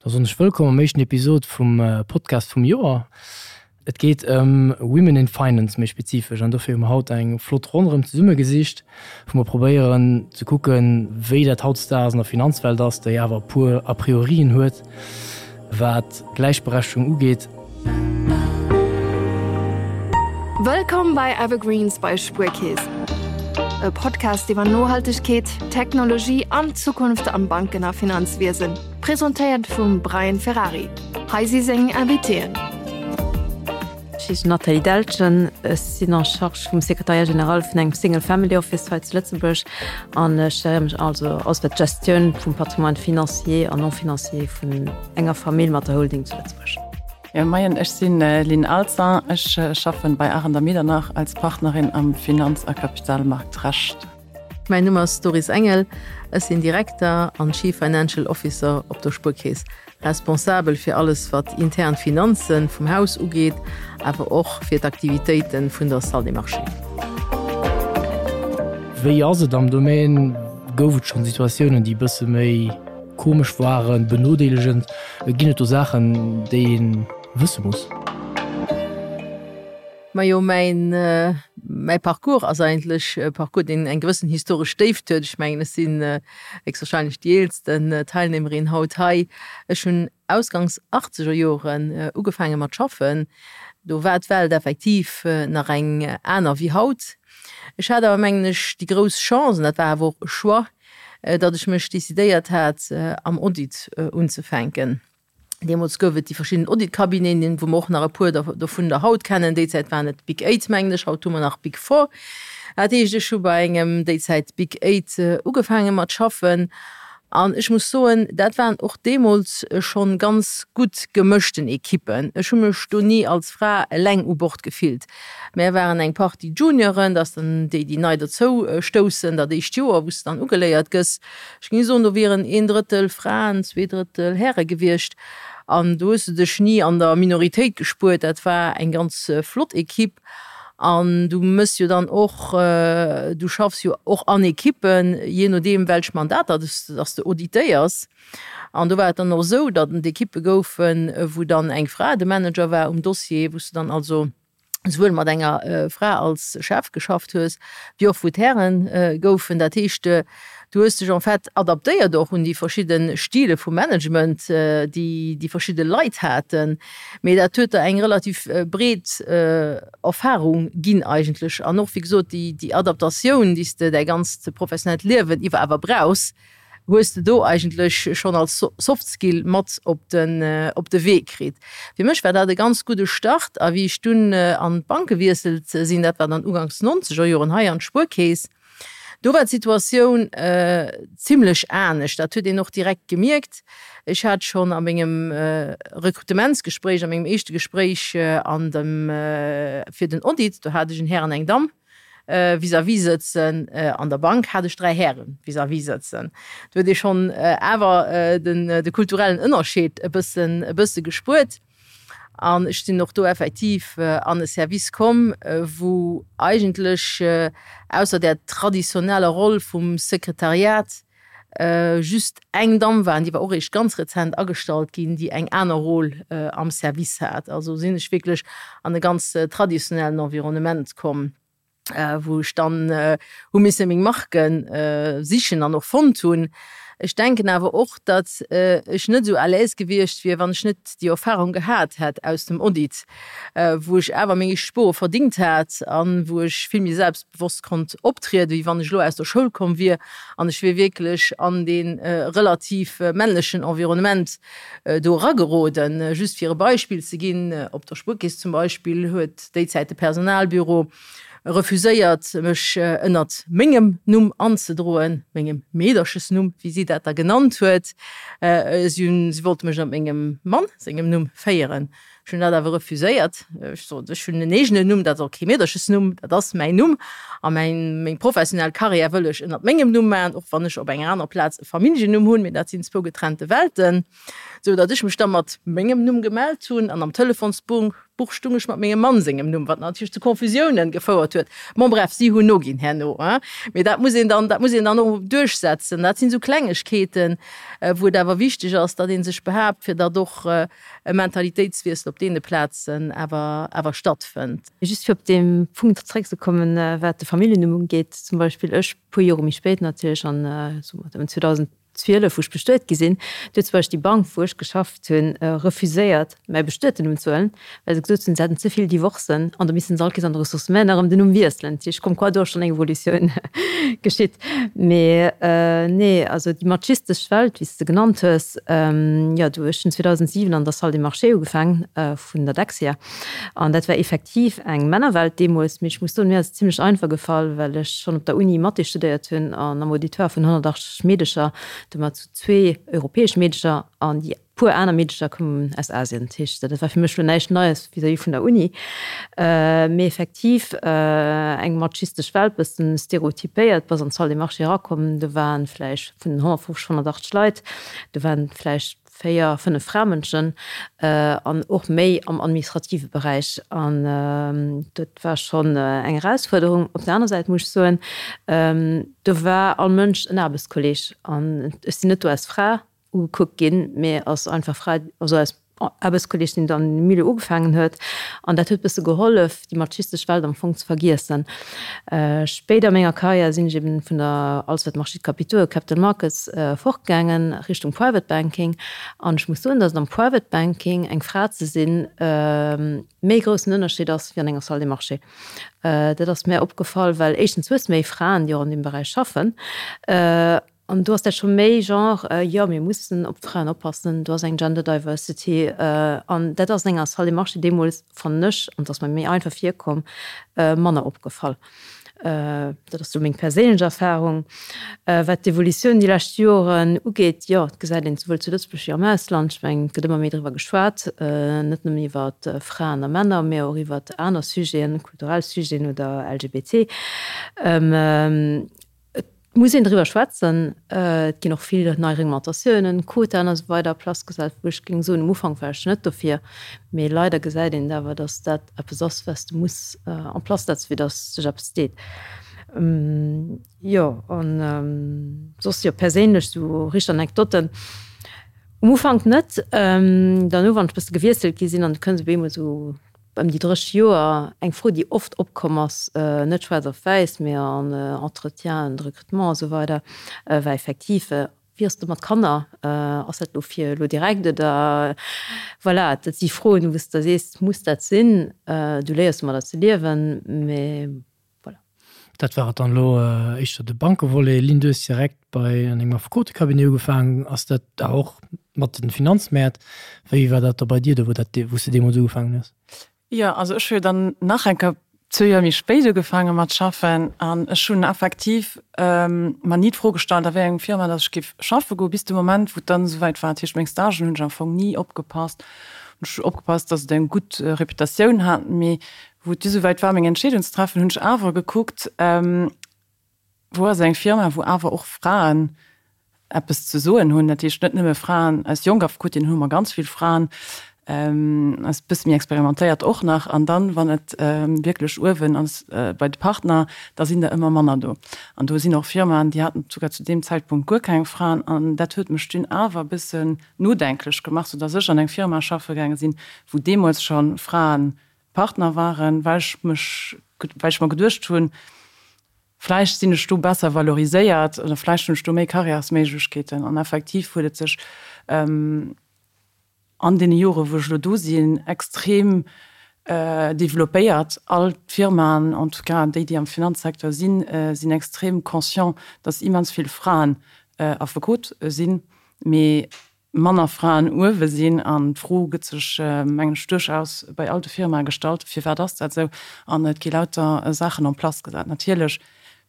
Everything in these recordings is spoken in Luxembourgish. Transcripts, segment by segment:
Da soen ech wëllkomm am éischten Episod vum Podcast vum Joer. Et geet ëm Women in Finance méi spezifesch an dofir hu mer haut eng flott Ronn erëm zesumme gesicht, wou mer probéieren ze kucken, wéi dat hautdesdaags an der Finanzwelt ass, déi awer e puer A priorien huet, wat d'Gläichberechtegung ugeet. Wëllkomm bei Evergreens bei Spuerkeess, e Podcast iwwer Nohaltegkeet, Technologie an d'Zukunft am Banken a Finanzwiesen. Presentéiert vum Brian Ferrari. Hei si seng Invitéen. Ech heeschen Nathalie Deltgen, ech sinn en charge vum Secrétariat général vun engem Single Family Office hei zu Lëtzebuerg an ech géiere mech also alles wat d'Gestioun vum Patrimoine financier an non financier vun enger Famill mat der Holding zu Lëtzebuerg. Jo moien, ech sinn Lynn Alzin, ech schaffen bei Arendt a Medernach als Partnerin am Finanz a Kapitalmarktrecht. Mäin Numm ass Doris Engel, ech sinn Direkter an Chief Financial Officer op der Spuerkeess, responsabel fir alles wat intern Finanzen vum Haus ugeet, awer och fir d'Aktivitéiten vun der Salle des Marchés. Wéi ass et am Domaine? Gouf et schonn Situatiounen, déi e bësse méi komesch waren, benodeelegend? Ginn et do Saachen, déi ee wësse muss? Majo, mäin, mäi Parcours ass eigentlech e Parcours, deen eng gewëssen historesch Déift huet. Ech mengen, ech sinn héchstwahrscheinlech déi eelsten Teilnehmerin haut hei. Ech hunn ausgangs achtzeger Joren ugefaange mat schaffen. Do war d'Welt effektiv nach eng aner wéi haut. Ech hat awer, mengen ech, déi grouss Chance, an dat war awer och e Choix, datt ech mech decidéiert hat, am Audit unzefänken. Deemools gouf et déi verschidden Audit-Cabineten, wou mer och nach e puer dovun der haut kennen. Déi Zäit waren et d'Big Eight, mengen ech, haut hu mer nach d'Big Four. Dat heescht, ech hu bei engem déi Zäit Big Eight ugefaange mat schaffen an ech muss soen, dat waren och deemools schonn ganz gutt gemëschten Ekippen. Ech hu mech do ni als Fra eleng u Bord gefillt. Mär waren eng Partie Junioren, dat ass dann déi, déi nei dozou stoussen, dat éischt Joer, wou s de dann ugeléiert gëss. Ech géing soen, do wieren een Drëttel Fraen, zwee Drëttel Häre gewiescht. An do hues de dech ni an der Minoritéit gespuert. Dat war eng ganz flott Ekipp. An du mëss jo dann och, du schaffs jo och an Ekippen, jee nodeem welch Mandater dass de auditéiers. An do war et dann och esou, datt et Ekippe goufen, wou dann eng Fra de Manager war um Dossier, wou s de dann also souwuel mat enger Fra als Chef geschafft hues, wéi och wou d'Häre goufen. Dat heescht, du hues dech en fait adaptéiert och un déi verschidde Stile vu Management, déi déi verschidde Leit haten. Mee dat huet der eng relativ breet Erfahrung ginn eigentlech an och, wéi gesot, déi Adaptatioun, déi s de däi ganzt professionellt Liewen iwwer awer brauchs, hues de do eigentlech schonn als Soft Skill mat op den op de Wee kritt. Fir mech war dat e ganz gudde Start a wéi ech dunn an d'Bank gewiesselt sinn, dat war dann uganks nonzeger Joren hei an d'Spuerkeess, do war d'Situatioun zimlech anescht. Dat huet een och direkt gemierkt. Ech hat schonn a mengem Rekrutementsgespréich, a mengem éischte Gespréich an dem fir den Audit, do hat ech en Här an eng Damm, vis-à-vis sëtzen. An der Bank hat ech 3 Häre vis-à-vis sëtzen. Do huet ee schonn awer de kulturellen Ënnerscheed e bëssen, e bësse gespuert. An ech sinn och do effektiv an e Service komm, wou eigentlech ausser där traditioneller Roll vum Sekretariat just eng Damm war, an déi war och eréischt ganz rezent agestallt ginn, déi eng aner Rôle am Service hat. Also sinn ech wierklech an e ganz traditionellen Environnement komm, wou ech dann hu misse meng Marke sichen an och fonnt hunn. Ech denken awer och, datt ech net esou à l'aise gewiescht wier, wann ech net déi Erfahrung gehat hätt aus dem Audit, wou ech awer meng éischt Spore verdingt hat a wou ech vill méi selbstbewosst konnt optrieden, wéi wann ech elo aus der Schoul komm wier an ech wier wierklech an dee relativ männlechen Environnement do erageroden. Just fir e Beispill ze ginn, Op der Spuerkeess zum Beispill huet déi Zäit de Personalbüro refuséiert, mech ënnert mengem Numm anzedroen, mengem Meederchesnumm, wéi si dat da genannt huet. Si hunn, si wollte mech ënnert mengem Mann sengem Numm féieren. Ech hunn dat awer refuséiert. Ech sot, ech hunn en eegenen Numm, dat ass och kee Meederchesnumm, dat ass mäin Numm a mäin, meng professionell Karriär wëll ech ënnert mengem Numm maachen, och wann ech op enger aner Plaz e Familljennumm hunn, mee dat sinn zwou getrennte Welten. Sou datt ech mech da mat mengem Numm gemellt hunn an am Telefonsbuch stung ech mat mengem Mann sengem Numm, wat natierlech zu Confusiounen gefouert huet. Bon bref, si hunn noginn herno, hein. Mee dat muss een dann, dat muss een dann och duerchsetzen. Dat sinn esou Klengegkeeten, wou et awer wichteg ass, datt ee sech behaapt, fir datt och e Mentalitéitswiessel op deene Plazen awer, awer stattfënnt. Just fir op dee Punkt zréckzekommen, wat de Familljennumm ugeet, zum Beispill ech, puer Jore méi spéit natierlech, an soe mer 2000, 12, wou ech bestuet gi sinn, do huet zum Beispill déi Bank, wou ech geschafft hunn, refuséiert, mäi bestueten Numm ze huelen, well se gesot hunn, se hätten ze vill Divorcen an da missten se all Kees an de Ressources humaines erëm den Numm wiesselen. Dat heescht, comme quoi do ass schonn eng Evolutioun geschitt. Mee nee, also déi machistesch Welt, wéi s de se genannt hues, jo, do, ech hunn 2007 an der Salle des Marchés ugefaangen vun der Dexia an dat war effektiv eng Männerwelt deemools. Mee ech muss soen, mir ass et zimlech einfach gefall, well ech schonn op der Uni Mathé studéiert hunn an am Auditoire vun 180 Meedecher, domat zu zwee europäesch Meedecher an déi puer aner Meedecher koumen aus Asien. Dat heescht, dat war fir mech elo näischt Neies vis-à-vis vun der Uni, mee effektiv eng machistesch Welt, bëssen stereotypéiert. Bass an d'Salle des Marchés erakomm, do waren vläicht vun den 150, 180 Leit, do waren vläicht 4, 5 Framënschen an och méi am administrative Beräich. An dat war schonn eng Erausfuerderung. Op der aner Säit muss ech soen, do war all Mënsch en Aarbechtskolleeg an ech sinn net do als Fra ugekuckt ginn, mee als einfach Fra, also als Aarbechtskolleeg, deen dann am Milieu ugefaangen huet. An dat huet bësse gehollef, déi machistesch Welt am Fong ze vergiessen. Spéider a menger Karriär sinn ech eben vun der alles wat Marchés de capitaux, Capital Markets, fortgaangen Richtung Private Banking. An ech muss soen, datt et am Private Banking eng Fra ze sinn méi groussen Ënnerscheed ass wéi an enger Salle des Marchés. Dat ass mär opgefall, well éischtens hues de méi Fraen, déi och an deem Beräich schaffen. An do ass dat scho méi Genre, jo mir mussen op d'Fraen oppassen, do ass eng Gender Diversity. An dat ass an enger Salle des Marchés deemools, fannen ech, an et ass mer méi einfach virkomm, manner opgefall. Dat ass sou meng perséinlech Erfarung. Wat d'Evolutioun déi lescht Joren ugeet, jo, et gesäit een souwuel zu Lëtzebuerg wéi am Ausland, ech mengen, et gëtt ëmmer méi driwwer geschwat, net nëmmen iwwer Fraen a Männer, mä och iwwer aner Sujeten, kulturell Sujeten oder LGBT. Et muss een driwwer schwätzen. Et ginn och vill nei Reglementatiounen, Quotaen a sou weider a Place gesat, wou ech géing soen, um Ufank war ech net dofir, mee leider gesäit een et awer, datt dat eppes ass, wat s de muss en place setzen, fir datt sech eppes deet. Jo, an soss, jo, perséinlech sou richteg Anekdotten, um Ufank net. Derno, wann ech e bësse gewiesselt gi sinn an du kënns op eemol sou Ëm déi 30 Joer, eng Fro, déi oft opkomm ass, net schwaarz op wäiss, mee an Entretienen de recrutement a sou weider, war effektiv, Wéi ass et mat Kanner? Ass dat elo fir elo direkt oder? Voilà, dat si Froen, wou s de da sees, Muss dat sinn? Du léiers domadder ze liewen, mee Voilà. Dat war et dann elo éischter de Bankevolet. Lynn, du hues direkt bei an engem Affekotecabinet ugefaangen. Ass dat da och mat den Finanzmäert? Wéi war dat da bei dir do, wou dat, wou s de deemools ugefaangen hues? Jo, also ech hu jo dann nach eng Kéier zwou Joer méi spéit ugefaange mat schaffen an ech hunn effektiv mer ni d'Fro gestallt, a wéi engem Firma datt ech géif schaffe goen, bis de Moment, wou et dann esouwäit war. Dat heescht, meng Stagen hunn ech am Fong ni opgepasst. Ech hu opgepasst, datt et eng gutt Reputatioun hat, mee Wou et du souwäit war, meng Entscheedung ze treffen, hunn ech awer gekuckt, Wou ass eng Firma, wou awer och Fraen eppes ze soen hunn? Dat heescht net nëmme Fraen aus jonk Affekotinnen, hu mer ganz vill Fraen, aus bësse méi experimentéiert och nach. An dann, wann et wierklech uewen ass bei de Partner, da sinn der ëmmer manner do. An do sinn och Firmaen, déi haten souguer zu deem Zäitpunkt guer keng Fraen. An dat huet mech dunn awer e bëssen nodenklech gemaach, soudass ech an eng Firma schaffe gaange sinn, wou deemools scho Fraen Partner waren, well ech mech, well ech mer geduecht hunn, vläicht sinn ech do besser valoriséiert oder vläicht hunn ech do méi Karriärsméiglechkeeten. An effektiv huet et sech an deene Jore wou ech elo do sinn, extrem developpéiert. All d'Firmaen, en tout cas déi, déi am Finanzsecteur sinn, sinn extrem conscient, datt immens vill Fraen Affekot sinn, mee manner Fraen uewe sinn. An d'Fro gëtt sech, mengen ech, duerchaus bei all de Firmae gestallt, Firwat ass dat esou? An et gi lauter Saachen en place gesat. Natierlech,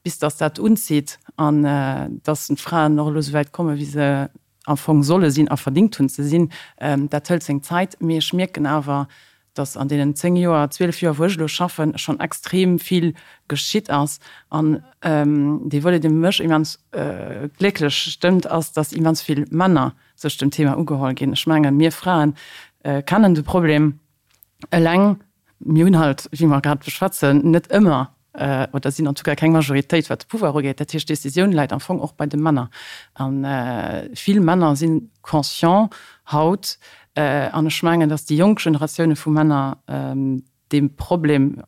bis datt dat unzitt an datt d'Fraen och elo esouwäit kommen, wéi se am Fong solle sinn a verdingt hunn ze sinn, dat hëlt seng Zäit. Mee ech mierken awer, dass an deenen 10 Joer, 12 Joer, wou ech elo schaffen, schonn extrem vill geschitt ass. An dee Volet, dee mech immens glécklech stëmmt, ass, dass immens vill Männer. sech dem Thema ugeholl ginn. Ech mengen, mir Fraen kennen de Problem eleng, mir hunn halt, wéi mer grad beschwätzen, net ëmmer oder sinn en tout cas keng Majoritéit, wat de Pouvoir ugeet. Dat heescht, d'Décisioun läit am Fong och bei de Männer. A vill Männer si conscient haut, an ech mengen, datt déi jonk Generatioune vu Männer dee Problem,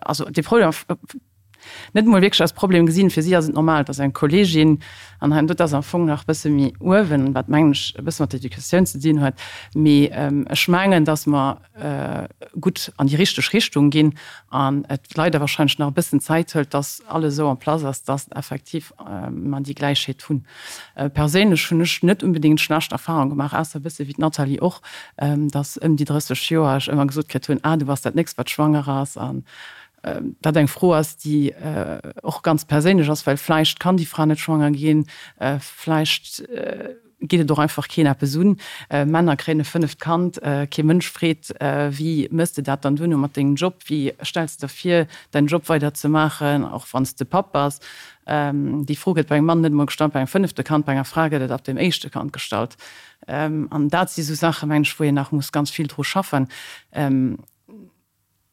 also dee Problem net emol wierklech als Problem gesinn. Fir si ass et normal, dass eng Kolleegin, an hei, dat ass am Fong nach e bësse méi uewen, wat mengen ech e bësse mat der Educatioun ze dinn huet, mee ech mengen, dass mer gutt an déi richteg Richtung ginn an et leider wahrscheinlech nach e bëssen Zäit hëlt, dass alles esou en place ass, dass effektiv mer déi Gläichheet hunn. Perséinlech hunn ech net unbedéngt schlecht Erfahrung gemaach, ausser e bësse wéi d'Nathalie och, dass ëm déi 30 Joer ech ëmmer gesot kritt hunn, ah du bass dat nächst wat schwanger ass an dat eng Fro ass, déi och ganz perséinlech ass, well vläicht kann déi Fra net schwanger ginn, vläicht geet et och einfach keen eppes un. Männer kréien e fënneft Kand, kee Mënsch freet, wéi mëss de dat dann duerno mat dengem Job, wéi stells de der vir, däin Job weider ze maachen, och wann s de Papp bass. Déi Fro gëtt bei engem Mann net emol gestallt bei engem fënnefte Kand, bei enger Fra gëtt et ab dem éischte Kand gestallt. An dat si sou Saachen, mengen ech, wou een nach muss ganz vill dru schaffen.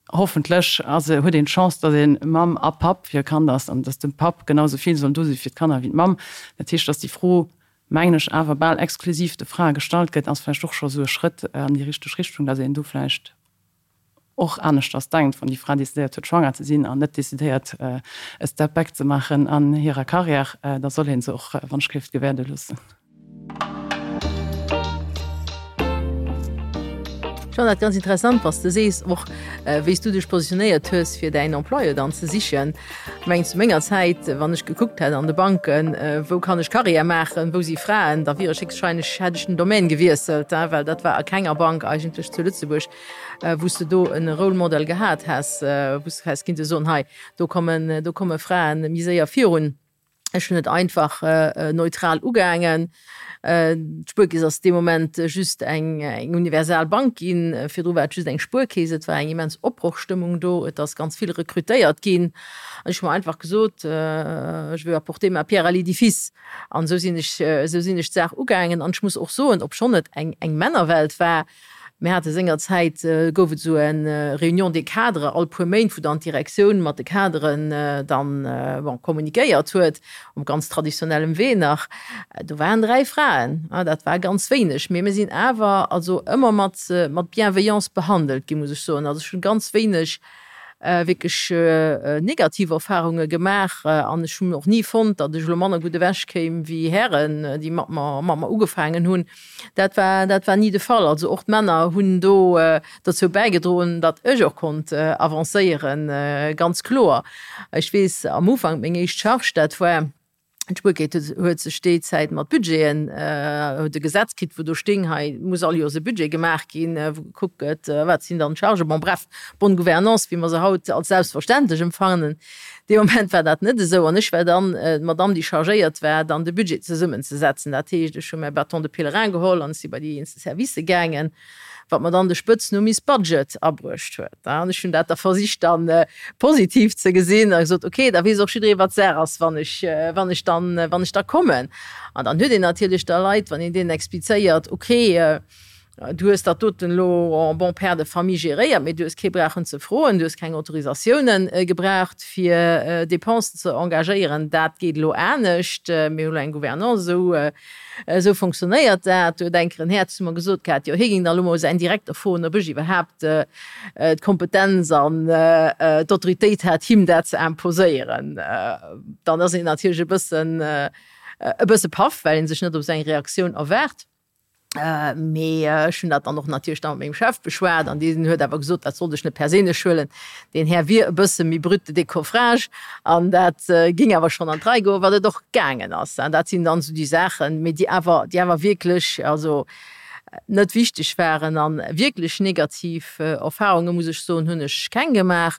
Hoffentlech ass, huet een d'Chance, datt ee Mamm a Papp fir e Kand ass an datt de Papp genau sou vill soll do si fir d'Kanner wéi d'Mamm. Dat heescht, datt déi Fro, mengen ech, awer bal exklusiv de Frae gestallt gëtt, ass vläicht och scho sou e Schrëtt an déi richteg Richtung, datt een do vläicht och aneschters denkt, wann déi Fra decidéiert huet, schwanger ze sinn an net decidéiert, e Step back ze maachen an hirer Karriär, da soll ee se och wann ech géif gewäerde loossen. Ech fannen dat ganz interessant, was de sees, och wéi s du dech positionéiert hues, fir däin Employeur dann ze sichen. Ech mengen, zu menger Zäit, wann ech gekuckt hätt an de Banken, wou kann ech Karriär maachen, wou si Fraen, da wier ech héchstwahrscheinlech, hätt ech den Domaine gewiesselt, well dat war a kenger Bank eigentlech zu Lëtzebuerg, wou s de do e Role Model gehat häss, wou s de häss kinnte soen, hei, do kommen, do komme Fraen méi séier virun. Ech hunn et einfach neutral ugaangen. D'Spuerkeess ass dee Moment just eng universal Bank ginn. Virdru war et just eng Spuerkeess. Et war eng immens Opbrochstëmmung do. Et ass ganz vill rekrutéiert ginn. An ech hu mer einfach gesot, Je veux apporter ma pierre à l'édifice. An esou sinn ech, esou sinn ech d'Saach ugaangen. An ech muss och soen, obschonn et eng Männerwelt war, Mir hate sengerzäit, gouf et esou eng Réunion des cadres all puer Méint, wou dann d'Direktioun mat de Kaderen dann, bon, kommunikéiert huet, op ganz traditionellem Wee nach. Do waren 3 Fraen, dat war ganz wéineg, mee mir sinn awer also ëmmer mat, mat Bienveillance behandelt ginn, muss ech soen. Also ech hunn ganz wéineg wierklech negativ Erfarunge gemaach an ech hunn och ni fonnt, datt ech elo manner gutt ewech kéim wéi Hären, déi mat mer, mat mer ugefaangen hunn. Dat war, dat war ni de Fall. Also och d'Männer hunn do dozou bäigedroen, datt ech och konnt avancéieren, ganz kloer. Ech weess am Ufank, meng éischt Charge, dat war, d'Spuerkeess huet sech déi Zäit mat Budgeten, huet e Gesetz kritt, wou do sting, hei muss all Joers e Budget gemaach ginn, wou gekuckt gëtt, wat sinn dann d'Chargen. Bon, bref, bonne gouvernance, wéi mer se haut als selbstverständlech empfannen. Dee Moment war dat net esou an ech war dann d'Madame, déi chargéiert war, dann de Budget zesummenzesetzen. Dat heescht, ech hu mäi Bâton de pèlerin geholl an ech si bei déi eenzel Servicë gaangen, wat mer dann de Spëtznumm Miss Budget abruecht huet. An ech hunn dat da versicht dann positiv ze gesinn a gesot, okay, da weess och jidderee wat Saach ass, wann ech, wann ech dann, wann ech da kommen. An dann huet een natierlech da Leit, wann een deenen explizéiert, okay, Du hues dat doten elo en bon père de famille géréiert, mee du hues kee brauchen ze froen, du hues keng Autorisatiounen gebraucht, fir Dépensen ze engagéieren. Dat geet elo anescht. Mir hu elo eng Gouvernance, esou, esou fonctionnéiert dat. Do huet eng Kéier en Här zu mer gesot gehat, jo, hie géing da elo mol säin Direkter froen, ob ech iwwerhaapt d'Kompetenz an d'Autoritéit hätt, him dat ze imposéieren. Dann ass een natierlech e bëssen, e bësse paff, well ee sech net op esou eng Reaktioun erwaart. Mee ech hunn dat dann och natierlech da mat mengem Chef beschwat an deen huet awer gesot, dat sollt ech net perséinlech huelen, deen Här wier e bësse méi brut de décoffrage an dat géing awer schonn an d'Rei goen, wat et och gaangen ass. An dat sinn dann esou déi Saachen, mee déi awer, déi awer wierklech also net wichteg waren. A wierklech negativ Erfarunge muss ech soen, hunn ech keng gemaach.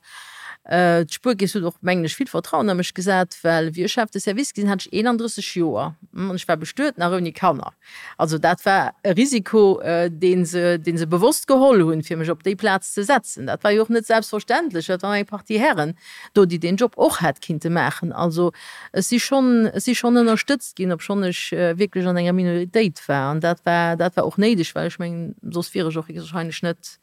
D'Spuerkeess huet och, mengen ech, vill Vertrauen a mech gesat, well wéi ech Chef de Service gi sinn, hat ech 31 Joer an ech war bestuet, nach ouni Kanner. Also dat war e Risiko, dee se, dee se bewosst geholl hunn, fir mech op déi Plaz ze setzen. Dat war jo och net selbstverständlech, dat waren eng Partie Hären do, déi deen Job och hätt kinnte maachen. Also ech si schonn, ech si schonn ënnerstëtzt ginn, obschonn ech wierklech an enger Minoritéit war. An dat war, dat war och néideg, well ech mengen, soss wier ech och héchstwahrscheinlech net,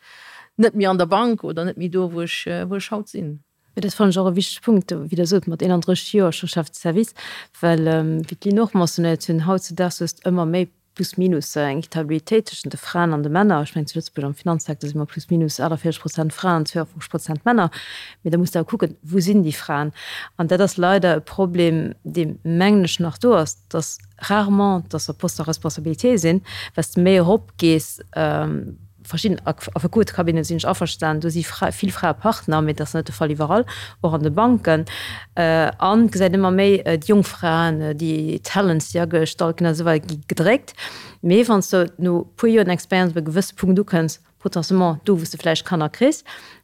net méi an der Bank oder net méi do, wou ech, wou ech haut sinn. Mee dat fannen ech och e wichtege Punkt, wéi Der sot, mat 31 Joer scho Chef de service, well, wéi d'Lynn och mentionnéiert hunn, hautzudaags hues de ëmmer méi plus minus eng Equitabilitéit tëschent de Fraen an de Männer. Ech mengen, zu Lëtzebuerg am Finanzsecteur si mer plus minus 48 Prozent Fraen, 52 Prozent Männer. Mee da muss de awer kucken, Wou sinn déi Fraen? An dat ass leider e Problem, dee, mengen ech, nach do ass, dass rarement, dass se op Postes à responsabilité sinn. Wat s de méi eropgees, Verschidden Affekotecabineten sinn ech averstanen, do si vill Frae Partner, mee dat ass net de Fall iwwerall, och an de Banken. An et gesäit ëmmer méi déi jonk Fraen, déi Talents, déi agestallt ginn a sou weider, gi gedréckt. Mee wann s de no e puer Joren Expérience op e gewësse Punkt ukënns, potentiellement do wou s de vläicht Kanner kriss,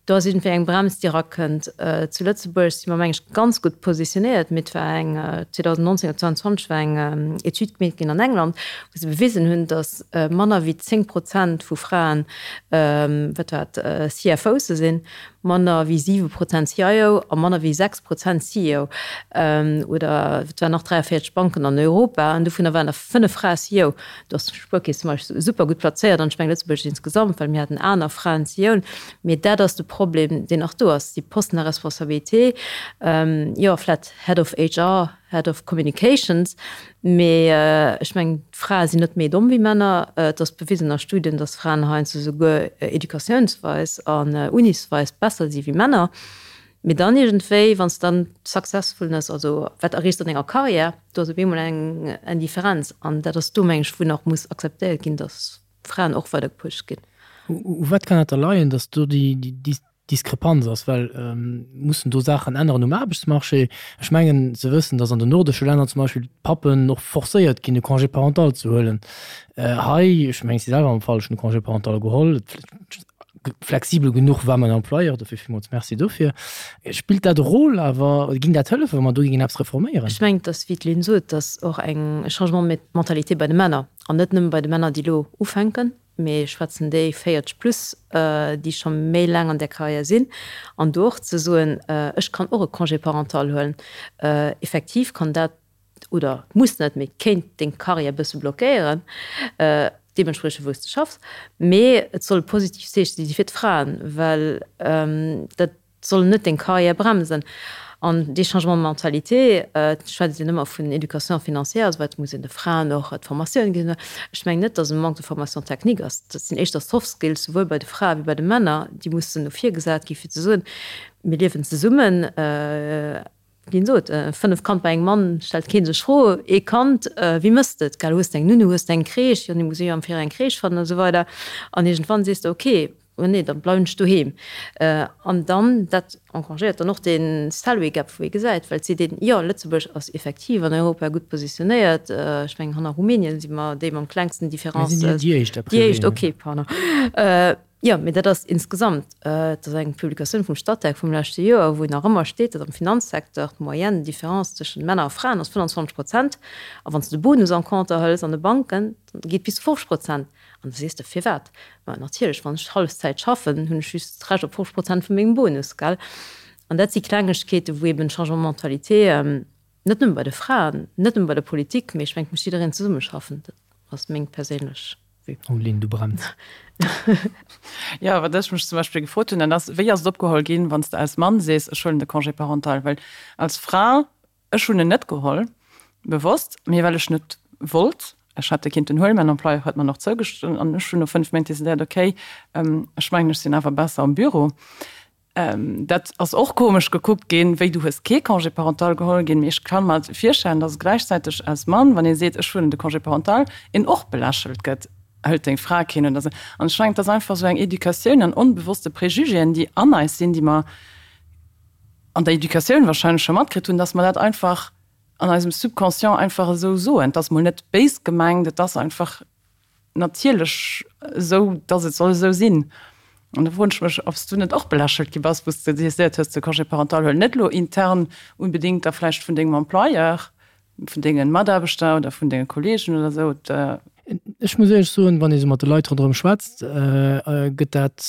do ass iergendwéi eng Brems déi erakënnt. Zu Lëtzebuerg si mer meng ech ganz gutt positionéiert, mee et war eng 2019 oder 2020 war eng Etüd gemeet ginn an England, wou se bewisen hunn, datt manner wéi 10 Prozent vu Fraen, wat war et, CFOse sinn, manner wéi 7 Prozent CIO a manner wéi 6 Prozent CEO. Oder et waren nach 43 Banken an Europa an dovunner waren der 5 Frae CEO. Do ass d'Spuerkeess zum Beispill super gutt plazéiert an ech mengen Lëtzebuerg insgesamt, well mir haten aner Fraen CEOen. Mee dat ass de Problem, deen nach do ass, déi Posten à responsabilité, jo vlätt Head of HR, Head of Communications, mee ech mengen d'Frae sinn net méi domm wéi Männer. Et ass bewisen a Studien, datt Fraen heiansdo souguer educatiounsweis an unisweis besser si wéi Männer. Mee dann iergendwéi, wann s de dann d'Successfulness, also wat erreechs de an denger Karriär, do ass op eemol eng Indifferenz. An dat ass do, meng ech, wou nach muss akzeptéiert ginn, datt Fraen och weider gepusht ginn. U wat kann dat da leien, datt do déi Diskrepanz ass? Well mussen do Saachen änneren um Aarbechtsmarché? Ech mengen ze wëssen, datt an den nordesche Länner zum Beispill d'Pappen och forcéiert ginn, e Congé parental ze huelen. Hei, ech mengen, ech si selwer am Fall, ech hunn e Congé parental geholl, Flexibel genuch war mäin Employeur, dofir villmools Merci dofir. Spillt dat e Rôle awer, ging dat hëllefen, wa mer do géingen eppes reforméieren? Ech mengen, dass, wéi d'Lynn sot, dass och eng Changement de mentalité bei de Männer, an net nëmme bei de Männer, déi elo ufänken, mee ech schwätzen déi 40 plus, déi scho méi laang an där Carrière sinn, an do och ze soen, ech kann och e Congé parental huelen. Effektiv kann dat oder muss net, mee kéint deng Karriär e bësse blockéieren, deementspriechend wou s de schaffs. Mee et soll e positivt Zeeche si fir d'Fraen, well dat soll net deng Karriär bremsen. An dee Changement de mentalité, et schwätzt een ëmmer vun Éducation financière a sou weider, et muss een de Fraen och d'Formatioun ginn. Ech mengen net, datt e Manque de formation technique ass. Dat sinn éischter Soft Skills, souwuel bei de Frae wéi bei de Männer, déi mussen no vir gesat gi fir ze soen, mir liewen zesummen, Wien sot, 5 Kand bei engem Mann, stellt keen sech Fro. Ee Kand, wéi mëss de et, gell? Hues de eng Nunnu, hues de eng Crèche? Jo, nee, muss ee jo am Virau eng Crèche fannen a sou weider. An iergendwann sees de, ok, oh nee, da bleiwen ech doheem. An dann, dat engrangéiert dann och dee Salary Gap, wou ee gesäit, well et seet een, jo, Lëtzebuerg ass effektiv an Europa gutt positionéiert, ech mengen, hanner Rumänien si mer déi mam klengsten Différence. Mir sinn déi éischt, a priori. Déi éischt, ok, pardon. Jo, mee dat ass insgesamt, et ass eng Publikatioun vum Statec vum leschte Joer, wou nach ëmmer steet, datt am Finanzsecteur d'Moyenne, d'Difference tëschent Männer a Fraen ass 25 Prozent. A wann s de de Bonus en compte hëls an de Banken, dann geet bis zu 50 Prozent. An da sees de, Firwat? Ma natierlech, wann ech Hallefzäit schaffen, hunn ech just d'Recht op 50 Prozent vu mengem Bonus, gell? An dat si Klengegkeeten, wou eben Changement de mentalité net nëmme bei de Fraen, net nëmme bei der Politik, mee ech mengen, et muss jiddereen zesummeschaffen. Dat ass meng perséinlech. Oh Lynn, du brenns. Jo, wat ech mech zum Beispill gefrot hunn, dat ass, wéi ass et opgeholl ginn, wann s de als Mann sees, ech huelen de Congé parental? Well als Fra, ech hunn en net geholl, bewosst, mee well ech net wollt. Ech hätt e kinnten huelen, mäin Employeur huet mer en och zougestinn an ech hunn no 5 Méint decidéiert, okay, ech mengen, ech sinn awer besser am Büro. Dat ass och komesch gekuckt ginn, wéi du hues kee Congé parental geholl ginn. Mee ech ka mer virstellen, datt gläichzäiteg als Mann, wann ee seet, ech huelen de Congé parental, een och belächelt gëtt, hëlt deng Fra keen oder esou. An ech mengen, et ass einfach esou eng Educatioun an onbewosste Préjugéen, déi an eis sinn, déi mer an der Educatioun wahrscheinlech scho matkritt hunn, datt mer dat einfach an eisem Subconscient einfach esou soen. Et ass mol net béis gemengt, et ass einfach natierlech esou, datt et soll esou sinn. An da froen ech mech, ob s du net och belächelt gi bass, wou s de decidéiert hues, de Congé parental huelen. Net elo intern unbedéngt da vläicht vun dengem Employeur, vun denge Mataarbechter oder vun denge Kolleegen oder esou. Ech muss éierlech soen, wann ee sou mat de Leit ronderëm schwätzt, gëtt dat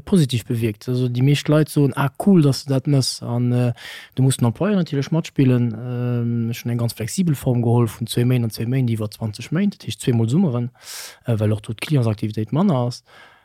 positiv bewierkt. Also déi meescht Leit soen, ah cool, datt s de dat méchs. An do muss den Employeur natierlech matspillen. Ech hunn eng ganz flexibel Form geholl vun zwéi Méint an zwéi Méint iwwer 20 Méint, dat heescht zweemol Summeren, well och do d'Clientsaktivitéit manner ass.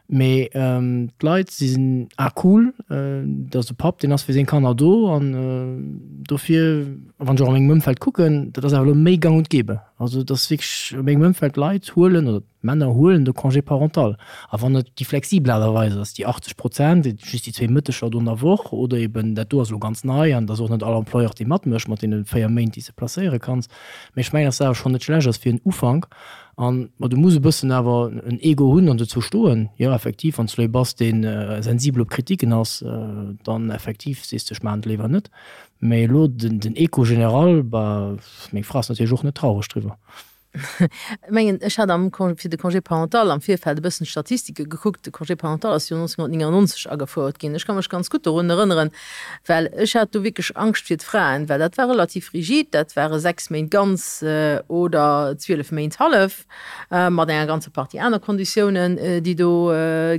Mee d'Leit si sinn, ah cool, dat ass e Papp, deen ass fir seng Kanner do an dofir, wann ech och a mengem Ëmfeld kucken, dat ass awer elo méi gang und gäbe. Also et ass wierklech a mengem Ëmfeld, d'Leit huelen oder d'Männer huelen de Congé parental. A wann et déi flexibel Aart a Weis ass, déi 80 Prozent, just déi zwéi Mëtteger do an der Woch oder eben dat do ass elo ganz nei an et ass och net all Employeur, dee matmécht mat deene 4 Méint, déi s de placéiere kanns. Mee ech mengen, dass dat awer schonn net schlecht ass fir en Ufank. An, ma du muss e bëssen awer en Ego hunn an dozou stoen. Jo, effektiv, wann s du ee bass, dee sensibel op Kritiken ass, dann effektiv sees de, ech maachen et léiwer net. Mä elo den Echo général, bah, meng Fra ass natierlech och net traureg driwwer. Ech mengen, ech hat am Congé, fir de Congé parental am Virfeld e bëssen d'Statistike gekuckt. De Congé parental ass jo 1999 agefouert ginn. Ech ka mech ganz gutt dorun erënneren, Well ech hat do wierklech Angscht fir d'Fraen, well dat war relativ rigid, dat ware 6 Méint ganz oder 12 Méint hallef, mat enger ganzer Partie aner Konditiounen, déi do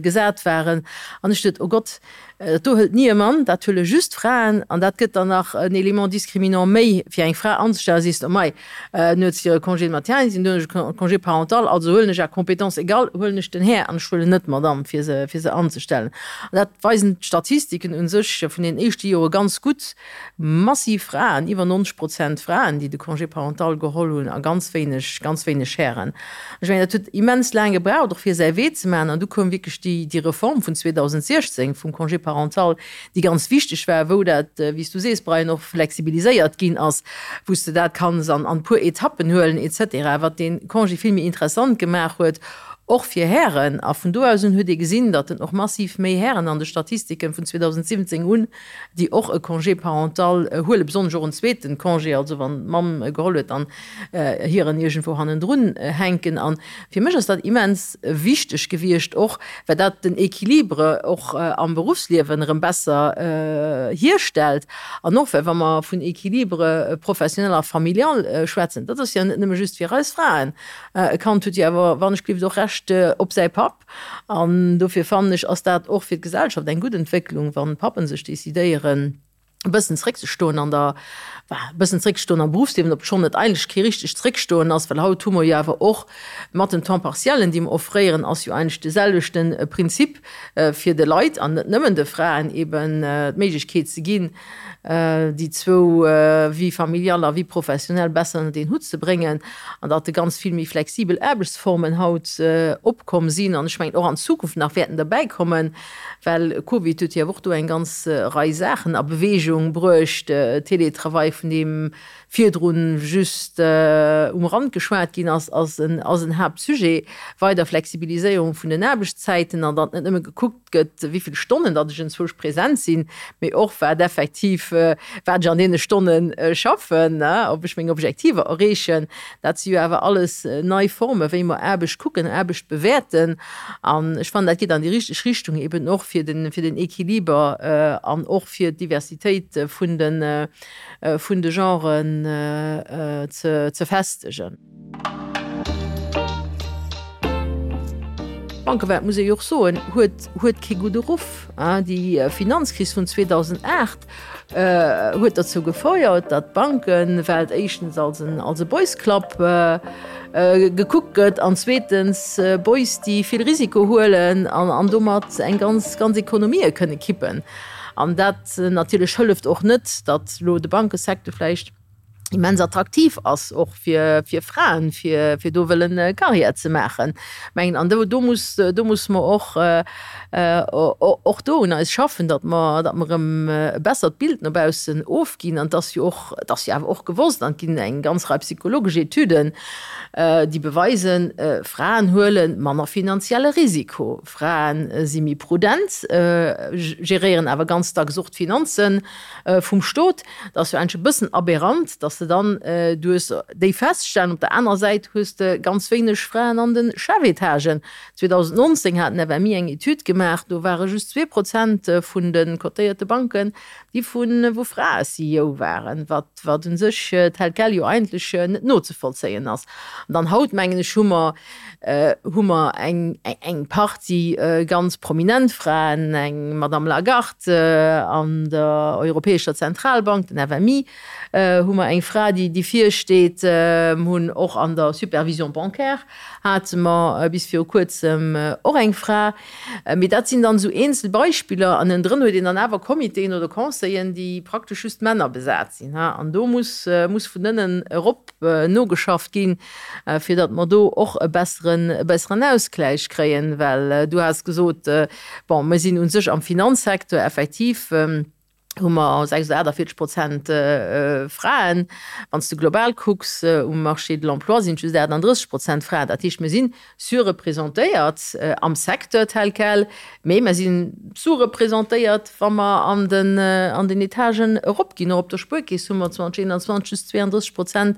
gesat waren. An ech duet, Oh Gott, dat do hëlt ni e Mann, dat huele just Fraen an dat gëtt dann nach en Élément discriminant méi fir eng Fra anzestellen. Da sees de, Oh mei, En huet hire Congé de maternité, dunn hunn ech e Congé parental, also huelen ech à compétence égale, huelen ech den Här an ech huelen net d'Madame, fir se, fir se anzestellen. An dat weisen d'Statistiken u sech vun den éischte Jore ganz gutt, massiv Fraen, iwwer 90 Prozent Fraen, déi de Congé parental geholl hunn a ganz wéineg, ganz wéineg Hären. Ech mengen, dat huet immens laang gebraucht, och fir säi Wee ze maachen. An du koum wierklech déi, déi Reform vun 2016 vum Congé parental, déi ganz wichteg war, wou dat, wéi s du sees, Brian, och flexibiliséiert ginn ass, wou s de dat kanns an e puer Etappen huelen et cetera, wat dee Congé vill méi interessant gemaach huet, och fir Hären. A vun do aus un huet ee gesinn, datt en och massiv méi Hären an de Statistiken vun 2017 un, déi och e Congé parental huelen, besonnesch och en zweeten Congé, also wann d'Mamm e geholl huet, dann hiren iergendwou hannendrun hänken. A fir mech ass dat immens wichteg gewiescht och, well dat den Equilibre och am Beruffsliewen erëm besser hierstellt. An och well, wa mer vun Equilibre professionnel a familial schwätzen, dat ass jo net nëmme just fir eis Fraen. E Kand huet jo awer, wann ech gelift, och Recht op säi Papp. An dofir fannen ech, ass dat och fir d'Gesellschaft eng gutt Entwécklung, wann d'Pappen sech decidéieren, e bëssen zréckzestoen an der, enfin, e bëssen zréckzestoen am Berufsliewen, obschonn et eigentlech kee richtegt Zréckstoen ass, well haut hu mer jo awer och mat den Temps partiellen, déi mer offréieren, ass jo eigentlech de selwechte Prinzip, fir de Leit, an net nëmmen de Fraen, eben d'Méiglechkeet ze ginn, déi zwou Vie familiale a Vie professionnelle besser ënnert een Hutt ze bréngen an datt ganz vill méi flexibel Aarbechtsformen haut opkomm sinn an ech mengen och an Zukunft nach wäerten derbäikommen, well Covid huet jo awer och do eng ganz Rei Saachen a Beweegung bruecht, Teletravail, vun deem virdrun just um Rand geschwat ginn ass, ass en ass en Haaptsujet, weider Flexibiliséierung vun den Aarbechtszäiten an datt net nëmme gekuckt gëtt, wéi vill Stonnen datt ech enzwousch present sinn, mee och wat effektiv, wat ech an deene Stonne schaffen, ob ech meng Objektiver erreechen. Dat si jo awer alles nei Formen, wéi mer Aarbecht kucken, Aarbecht bewäerten. An ech fannen, dat geet an déi richteg Richtung, eben och fir den, fir den Equiliber an och fir d'Diversitéit vun den, vun de Genren ze festegen. D'Bankewelt, muss ee jo och soen, huet huet kee gudde Ruff. Déi Finanzkris vun 2008 huet derzou gefouert, datt d'Bankewelt éischtens als en als e Boys Club gekuckt gëtt an zweetens Boys, déi vill Risiko huelen an an domat eng ganz ganz Ekonomië kënne kippen. An dat natierlech hëlleft och net, datt elo de Bankesecteur vläicht immens attraktiv ass och fir, fir Fraen, fir, fir do wëllen Carrière ze maachen. Mengen, an do, do muss, do muss mer och, och do un eis schaffen, datt mer, datt mer erëm e bessert Bild no baussen ofginn. An et ass jo och, et ass jo awer och gewosst, an et ginn eng ganz Rei psychologesch Etüden, déi beweisen, Fraen huele manner finanzielle Risiko. Frae si méi prudent, geréieren awer ganz dacks och d'Finanze vum Stot. Dat ass jo eigentlech e bëssen aberrant, datt. Dass de dann, du hues déi Feststellen, op der anerer Säit hues de ganz wéineg Fraen an de Chefetagen. 2019 hat den FMI eng Etüd gemaach, do ware just 2% vun de cotéierte Banken, déi vu wou Frae CEO waren, wat wat u sech tel quel jo eigentlech net nozevollzéien ass. An dann haut, mengen ech, hu mer hu mer eng eng Partie ganz prominent Fraen, eng Madame Lagarde an der Europäescher Zentralbank, den FMI, hu mer eng Fra, déi déi virsteet, hunn och an der Supervision bancaire hate mer bis viru Kuerzem och eng Fra. Mee dat sinn dann esou eenzel Beispiller an ënnendrën huet een dann awer Comitéen oder Conseillen, déi praktesch just Männer besat sinn. An do muss muss vun ënnen erop nogeschafft ginn, fir datt mer do och e besseren e besseren Ausgläich kréien. Well du has gesot, bon, mir sinn u sech am Finanzsecteur effektiv, hu mer 46 Prozent Fraen. Wann s de global kucks, um Marché de l'emploi sinn et just 38 Prozent Fraen. Dat heescht, mir si surreprésentéiert am Secteur tel quel, mee mer si sous-représentéiert, wa mer an den, an den Etagen eropginn. Och op der Spuerkeess hu mer 2021 just 32 Prozent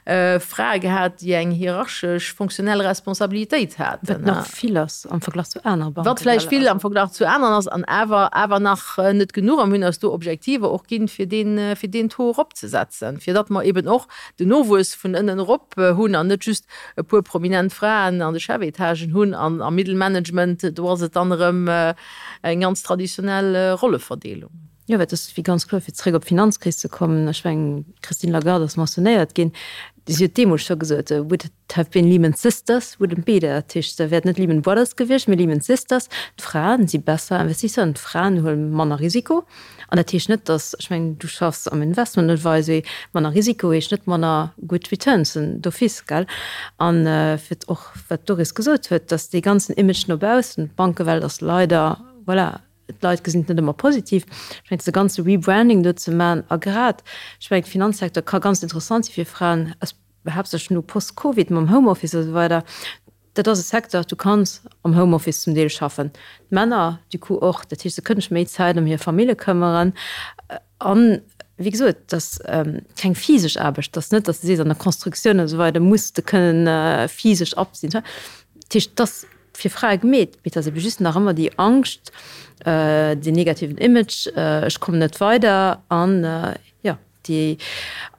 Frae gehat, déi eng hierarchesch fonctionnel Responsabilitéit haten. Wat nach vill ass am Verglach zu anere Banken. Wat vläicht vill am Verglach zu aneren ass an awer awer nach net genuch. A mir hunn eis do Objektiver och ginn, fir deen, fir deen Taux eropzesetzen, fir datt mer eben och den Nowuess vun ënnen erop hunn an net just e puer prominent Fraen an de Chefetagen hunn an am Middelmanagement, do ass et dann erëm eng ganz traditionell Rolleverdeelung. Jo, well et ass wéi ganz kloer, fir zréck op d'Finanzkris ze kommen, ech mengen, d'Christine Lagarde ass mentionnéiert ginn, si huet deemools scho gesot, would it have been Lehman Sisters, wouldn't be there. Dat heescht, se wäert net Lehman Brothers gewiescht, mee Lehman Sisters. D'Fraen si besser Investisseuren, d'Fraen huele manner Risiko. An dat heescht net, datt, ech mengen, du schaffs am Investment Advisory, manner Risiko heescht net manner gutt Returns d'office, gell? An fir och, wat d'Doris gesot huet, datt dee ganzen Image no baussen, d'Bankewelt ass leider, voilà, D'Leit gesinn et net ëmmer positiv. Ech mengen, de ganze Rebranding do ze maachen a grad, ech mengen, de Finanzsecteur ka ganz interessant si fir Fraen, haaptsächlech no post-Covid mam Homeoffice a sou weider. Dat ass e Secteur, du kanns am Homeoffice zum Deel schaffen, d'Männer du coup och. Dat heescht, se kënnen sech méi Zäit ëm hir Famille këmmeren. An, wéi gesot, et ass keng physesch Aarbecht. Et ass net, datt s de sees, an der Constructioun a sou weider muss de kënnen physesch appt sinn. Dat heescht, et ass fir Frae gemeet, mee et ass ebe just nach ëmmer déi Angscht, deen negativen Image, ech kommen net weider an jo, déi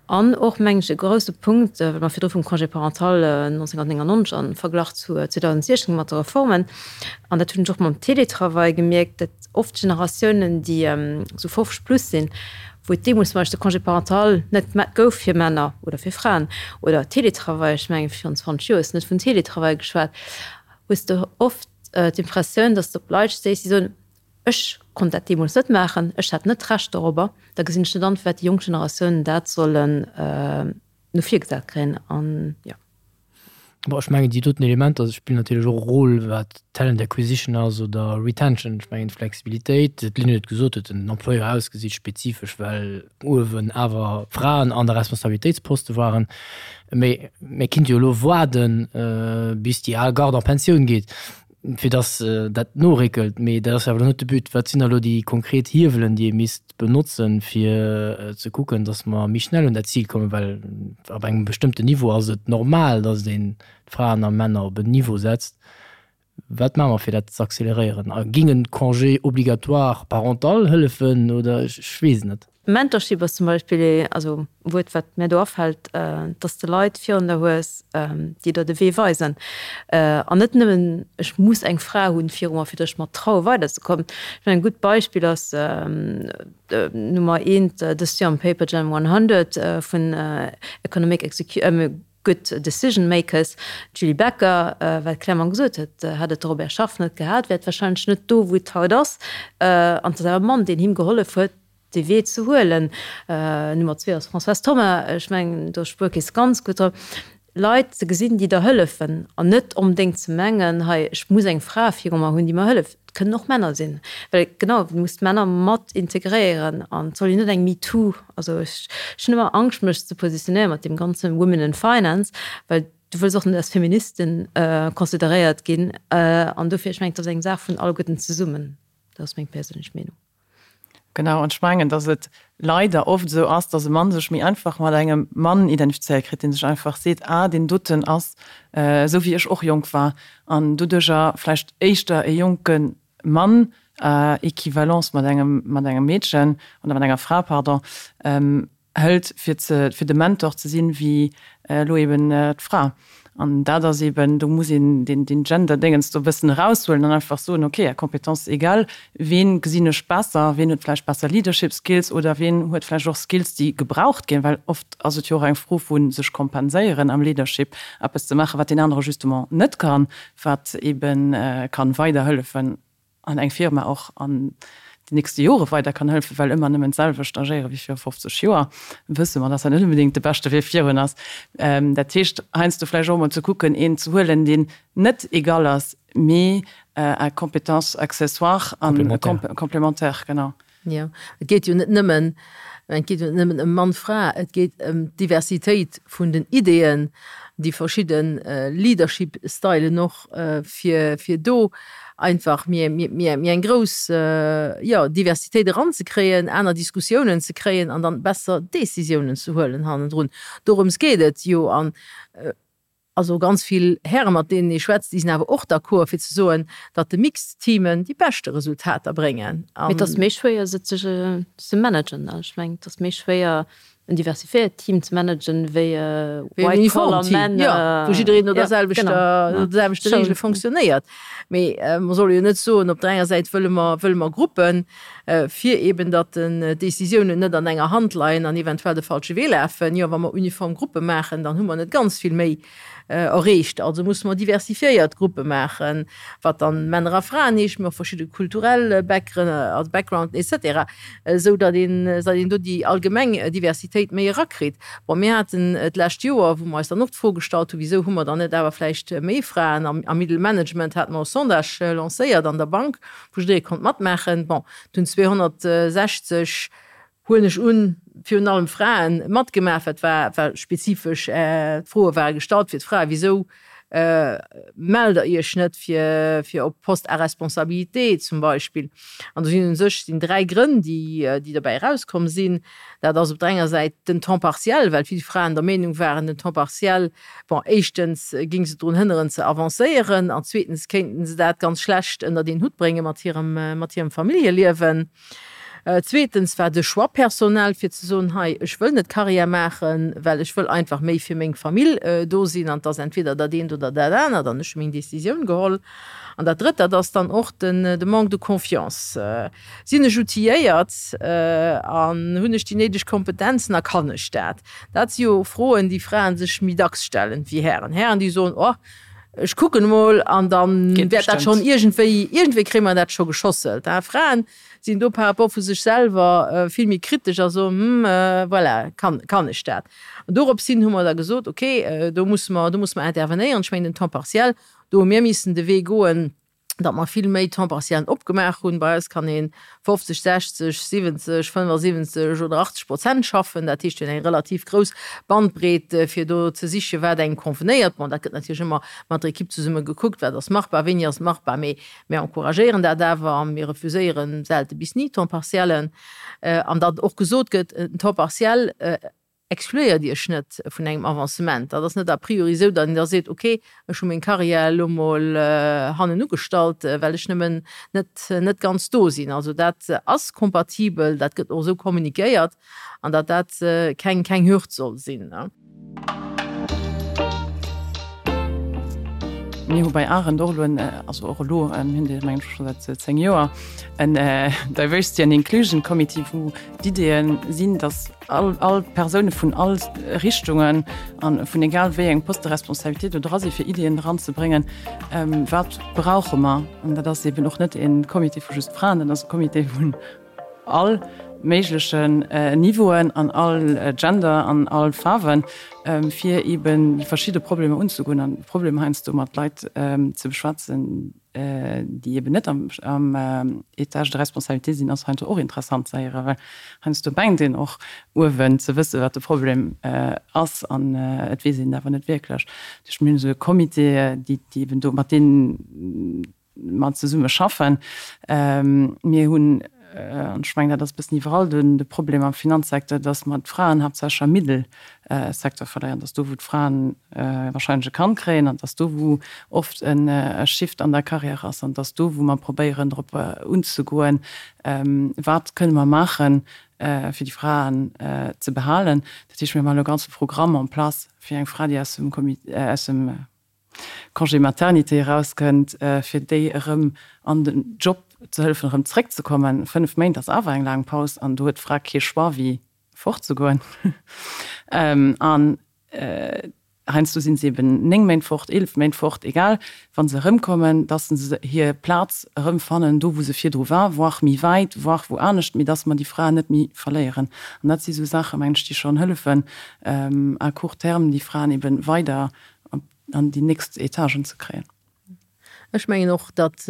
an och mengen ech e grousse Punkt, well mer virdru vum Congé parental 1999 am Verglach zu 2016 mat de Reformen, an dat hunn ech och mam Télétravail gemierkt, dat oft Generatiounen, déi esou 50 plus sinn, wou et deemools zum Beispill de Congé parental net gouf fir Männer oder fir Fraen, oder Télétravail, ech mengen virun 20 Joer hues de net vun Télétravail geschwat, hues de oft d'Impressioun, datt s de op Leit stéiss, déi soen, ech konnt dat deemools net maachen, ech hat net d'Recht dorobber, da gesinn ech net an, firwat déi jonk Generatiounen dat sollen no vir gesat kréien. An jo. Bon, ech mengen, déi doten Elementer spillen natierlech och e Rôle, wat Talent Acquisition ass oder Retention. Ech mengen, d'Flexibilitéit, d'Lynn huet et gesot, huet den Employeur ausgesicht, spezifesch, well uewen awer Fraen an der Responsabilitéitsposte waren. Mee mir kinnt jo elo waarden, bis déi al Garde en Pensioun geet, fir dass dat noréckelt. Mee dat ass jo awer elo net de But. Wat sinn da elo déi konkret Hiewelen, déi ee misst benotzen, fir ze kucken, dass mer méi schnell un dat Zil kommen, well ab engem bestëmmten Niveau ass et normal, dass een d'Fraen a Männer op en Niveau setzt. Wat maache mer, fir dat ze acceleréieren? A géing en Congé obligatoire parental hëllefen oder ech weess et net. Mentorship ass zum Beispill ee, also e Wuert, wat mär do afält, dass de Leit virun der hues, déi der de Wee weisen. An net nëmmen, ech muss eng Fra hunn viru mer, fir datt ech mer traue weiderzekommen. Ech mengen, e gutt Beispill ass Nummer eent dëst Joer am Paper Gen 100 vun Economic Good Decision Makers, d'Julie Becker, wat clairement gesot huet, hätt et de Robert Schaff net gehat, wär et warscheinlech net do, wou et haut ass. An et ass awer e Mann, deen him gehollef huet, dee Wee ze huelen. Nummer zwee ass Françoise Thoma. Ech mengen, do Spuerkeess ganz gutt drop. Leit ze gesinn, déi der hëllefen an net onbedéngt ze mengen, hei, ech muss eng Fra viru mer hunn, déi mer hëlleft. Et kënnen och Männer sinn. Well genau, du muss d'Männer mat integréieren an et soll jo net eng MeToo, also ech hunn ëmmer Angscht, mech ze positionéieren mat deem ganze Women in Finance, well du wëlls och net als Feministin consideréiert ginn. An dofir, ech mengen, et ass eng Saach vun alleguerten zesummen. Dat ass meng perséinlech Meenung. Genau, an ech mengen, datt et leider oft esou ass, datt e Mann sech méi einfach mat engem Mann identifizéiert kritt, dee sech einfach seet, ah, deen doten ass esou wéi ech och jonk war, an doduercher vläicht éischter e jonke Mann, à équivalence mat engem, mat engem Meedchen oder mat enger Fra, pardon, hëlt, fir ze, fir de Mentor ze sinn, wéi elo eben d'Fra. An dat ass eben, do muss een deen, deen Gender-Déngens do e bëssen eraushuelen an einfach soen, okay, à compétences égales, ween gesinn ech besser, ween huet vläicht besser Leadership Skills oder ween huet vläicht och Skills, déi gebraucht ginn, well oft ass et jo och eng Fro vu sech kompenséieren am Leadership, eppes ze maachen, wat deen anere justement net kann, wat eben kann weiderhëllefen an eng Firma och an de nächste Jore weider kann hëllefen, well ëmmer nëmmen d'selwecht agéiere wéi viru 50 Joer, wësse mer, dass dat net onbedéngt de beschte Wee virun ass. Dat heescht, heiansdo vläicht och emol ze kucken, een ze huelen, deen net égal ass, mee à compétences accessoires an complémentaires, genau. Jo, et geet jo net nëmmen, et geet jo net nëmmen ëm Mann-Fra, et geet ëm d'Diversitéit vun den Ideeën, déi verschidde Leadership-Stylen och, fir, fir do einfach méi, méi, méi eng grouss, jo, Diversitéit eranzekréien, aner Diskussiounen ze kréien an dann besser Décisiounen ze huelen hannendrun. Dorëms geet et jo. An Also ganz vill Häre mat deenen ee schwätzt, déi sinn awer och d'accord fir ze soen, datt de mixed Teamen déi beschte Resultater bréngen. Mee et ass méi schwéier se ze managen. Ech mengen et ass méi schwéier en diversifiéiert Team ze managen wéi e white collar man. Jo, wou jiddereen no der selwechter, no de selwechte Reegele fonctionnéiert. Mee mer solle jo net soen, op der enger Säit wëlle mer, wëlle mer Gruppen, fir eben datt den Décisiounen net an enger Hand leien an eventuell de falsche Wee lafen. Jo, wa mer uniform Gruppe maachen, dann hu mer net ganz vill méi erreecht. Also musse mer diversifiéiert Gruppe maachen, wat dann Männer a Fraen heescht, mee och verschidde kulturell Backgrounden et cetera, esou datt een, datt een do déi allgemeng Diversitéit méi erakritt. Bon, mir haten d'lescht Joer, wou mer eis dann och d'Fro gestallt hunn, Wisou hu mer dann net awer vläicht méi Fraen am Middle Management, hate mer e Sondage lancéiert an der Bank, wou jidderee konnt matmaachen. Bon, et hunn 260, huelen ech un, virun allem Fraen matgemaach. Wat war, war spezifesch, d'Froe ware gestallt fir d'Fraen, Wisou mellt der Iech net fir, fir op Poste à responsabilité zum Beispill? An do sinn u sech sinn dräi Grënn, déi, déi derbäi erauskomm sinn. Dat ass op der enger Säit den Temps partiel, well vill Fraen der Meenung waren, den Temps partiel Bon, éischtens géing se drun hënneren ze avancéieren an zweetens kéinten se dat ganz schlecht ënnert een Hutt brénge mat hirem, mat hirem Familljeliewen. Zweetens war de Choix personnel, fir ze soen, hei, ech wëll net Carrière maachen, well ech wëll einfach méi fir meng Famill do sinn an 't ass entweder dat eent oder dat anert an ech hu meng Décisioun geholl. An dat Drëtt, dat ass dann och den, de Manque de confiance. Sinn ech outilléiert an hunn ech déi néideg Kompetenzen a kann ech dat? Dat si jo Froen, déi Fraen sech méi dacks stellen wéi Hären. Hären, déi soen, Oh, ech kucken emol an da wäert dat schonn iergendwéi, iergendwéi kréie mer dat scho geschosselt. Fraen sinn do par rapport vu sech selwer vill méi kritesch a soen, Hm, voilà, kann, kann ech dat? An dorops hin hu mer da gesot, Okay, do musse mer, do musse mer intervenéieren. Ech mengen, den Temps partiel, do hu mir missen de Wee goen, datt mer vill méi Temps-partiellen opgemaach hunn. Bei eis kann ee 50, 60, 70, 75 oder 80 Prozent schaffen. Dat heescht, mir hunn eng relativ grouss Bandbreet, fir do ze sichen, wat engem convenéiert. Bon, dat gëtt natierlech ëmmer mat der Ekipp zesumme gekuckt, wat ass machbar, wéini ass machbar. Mee mir encouragéieren dat awer a mir refuséiere selte bis ni Temps-partiellen. An datt och gesot gëtt, en Temps partiel Excluéiert Iech net vun engem Avancement. Dat ass net a priori esou, datt een da seet, ok, ech hu meng Carrière elo mol hannen ugestallt, well ech nëmmen net net ganz do sinn. Also dat ass kompatibel, dat gëtt och esou kommunikéiert an datt dat keng keng Hürd soll sinn. Mir hu bei Arendt och elo en, also och elo, mir hunn dee mengen ech scho säit 10 Joer, en Diversity and Inclusion Committee, wou d'Ideeë sinn, datt all, all Persoune vun all Richtungen an vun egal wéi eng Poste de responsabilité do dra si fir Ideeën eranzebréngen, wat brauche mer. An dat ass eben och net e Comité vu just Fraen, dat ass e Comité vun all méiglechen Niveauen an all Gender an all Faarwen, fir eben déi verschidde Problemer unzegoen an d'Problemer heiansdo mat Leit ze beschwätzen, déi eben net am Étage de responsabilité sinn, ass heiansdo och interessant ze héieren, well heiansdo mengt een och uewen ze wësse wat de Problem ass an et weess een et awer net wierklech. Dat heescht, mir hunn esou e Comité, déi eben do mat deenen mer zesumme schaffen. Mir hunn. an ech mengen, dat ass e bëssen iwwerall de Problem am Finanzsecteur, dass mer d'Fraen haaptsächlech am Middelsecteur verléieren, dass do wou d'Fraen wahrscheinlech e Kand kréien an dass do wou oft e Shift an der Carrière ass an dass do wou mer probéieren drop unzegoen, wat kënne mer maachen, fir déi Fraen ze behalen. Dat heescht, mir maachen elo e ganze Programm en place fir eng Fra, déi aus dem Comité, aus dem Congé maternité erauskënnt, fir déi erëm an den Job ze hëllefen, erëm zréckzekommen. 5 Méint ass awer eng laang Paus an do huet d'Fra kee Choix wéi fortzegoen. An heiansdo si se eben 9 Méint fort, 11 Méint fort, egal, wa se erëmkommen, dass se hir Plaz erëmfannen do wou se virdru war, voire méi wäit, voire wou anescht, mee dass mer déi Fraen net méi verléieren. An dat si sou Saachen, mengen ech, déi schonn hëllefen à court terme déi Fraen eben weider an déi nächst Etagen ze kréien. Ech mengen och, datt,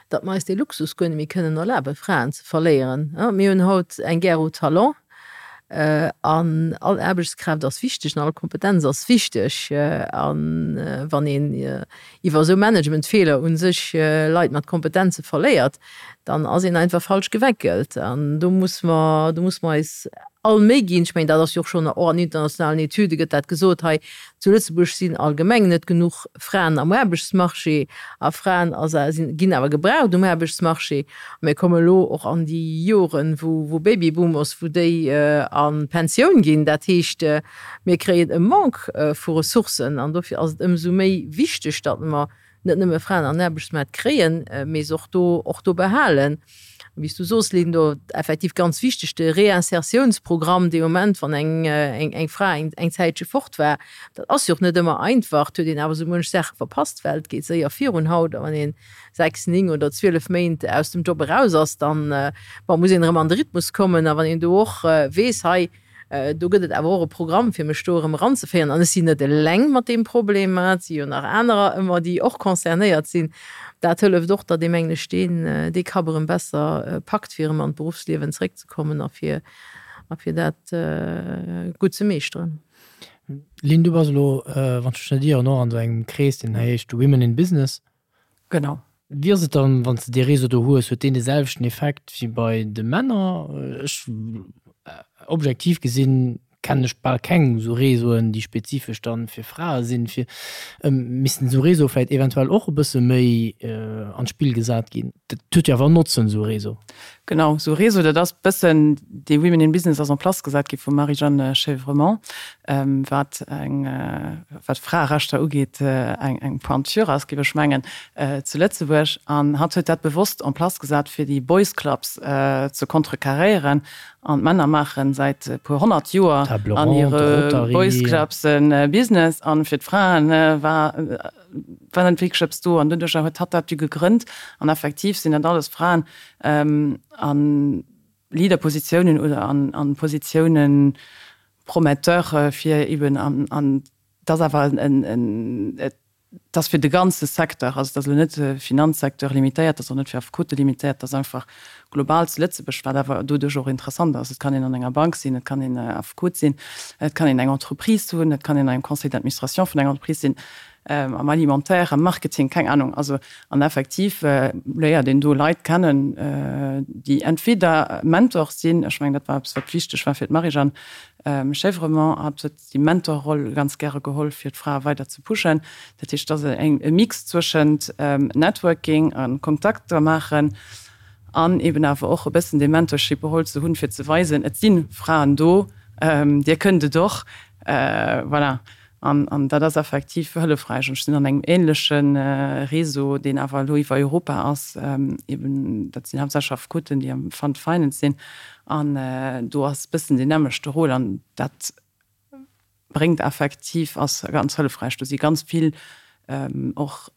datt mer eis dee Luxus guer net méi kënnen erlaben, Fraen ze verléieren. Mir hunn haut eng Guerre aux talents an all Aarbechtskraaft ass wichteg an all Kompetenz ass wichteg. A wann een iwwer esou Managementfeeler u sech Leit mat Kompetenze verléiert, dann ass een einfach falsch geweckelt. An do muss mer, do muss mer eis all Méi ginn. Ech mengen, dat ass jo och schonn, och an internationalen Etüde gëtt dat gesot, hei zu Lëtzebuerg sinn allgemeng net genuch Fraen am Aarbechtsmarché a Fraen sinn, ginn awer gebraucht um Aarbechtsmarché. A mir komme elo och an déi Joren, wou, wou Babyboomers, wou déi a Pensioun ginn. Dat heescht, mir kréien e Manque vu Ressourcen an dofir ass et ëmsou méi wichteg, datt mer net nëmme Fraen an den Aarbechtsmaart kréien, mee se och do, och do behalen. Wéi s du soos, Lynn, do effektiv ganz wichteg de Réinsertiounsprogramm, dee Moment, wann eng, eng, eng Fra eng, eng Zäitche fort war. Dat ass jo och net ëmmer einfach, et huet een awer esou muench Saache verpasst. D'Welt geet séier virun haut a wann een 6, 9 oder 12 Méint aus dem Job eraus ass, dann, bon, muss een erëm an de Rhythmus kommen. A wann een do och weess, hei, Do gëtt et awer och e Programm, fir mech do erëm eranzeféieren. An ech sinn net eleng mat deem Problem, et si jo nach anerer ëmmer, déi och concernéiert sinn. Dat hëlleft och, datt ee, mengen ech, deen, dee Kapp erëm besser packt, fir erëm an d'Beruffsliewen zeréckzekommen a fir, a fir dat gutt ze meeschteren. Lynn, du bass elo, wann ech mech net ieren, och an esou engem Krees, deen heescht Women in Business. Genau. Wéi ass et dann, wann s de dee Réseau do hues, huet deen de selwechten Effekt wéi bei de Männer? Ech, objektiv gesinn, kennen ech bal keng esou Réseauen, déi spezifesch dann fir Frae sinn. Fir, missten esou Réseaue vläicht eventuell och e bësse méi an d'Spill gesat ginn? Dat huet jo awer en Notzen, esou e Réseau. Genau, esou e Réseau, dat ass bëssen, dee Women in Business ass en place gesat gi vum Marie-Jeanne Chevremont, wat eng, wat Fraerechter ugeet, eng, eng Pointure ass, géif ech mengen, zu Lëtzebuerg. An hatt huet dat bewosst en place gesat, fir déi Boys Clubs ze contrecarréieren. An d'Männer maache säit e puer 100 Joer an hire Boys Clubs e Business, an fir d'Fraen war, war net wierklech eppes do an doduercher huet hatt dat du gegrënnt an effektiv sinn dat alles Fraen a Leaderpositiounen oder an Positiounen prometteur fir eben an an et ass awer en et ass fir de ganze Secteur, also et ass elo net Finanzsecteur limitéiert, et ass och net fir Affekote limitéiert, et ass einfach global zu Lëtzebuerg, wat awer doduerch och interessant ass. Et kann een an enger Bank sinn, et kann een Affekot sinn, et kann een eng Entreprise hunn, et kann een an engem Conseil d'administration vun enger Entreprise sinn, am Alimentaire, am Marketing, keng Ahnung. Also, an effektiv léiert een do Leit kennen, déi entweder Mentor sinn, ech mengen, dat war eppes, wat wichteg war fir d'Marie-Jeanne Chèvremont, hatt huet déi Mentorroll ganz gäre geholl, fir d'Frae weider ze pushen. Dat heescht, et ass e Mix zwëschent Networking a Kontakter maachen an eben awer och e bëssen dee Mentorship-Rôle ze hunn, fir ze weisen, et si Fraen do, dir kënnt et och. Voilà. An dat ass effektiv hëllefräich. Ech sinn an engem änleche Réseau, deen awer elo iwwer Europa ass, eben dat sinn haaptsächlech Affekoten, déi am Fund Finance sinn. An do ass e bëssen deen nämmlechte Rôle an dat bréngt effektiv, ass ganz hëllefräich. Do si ganz vill och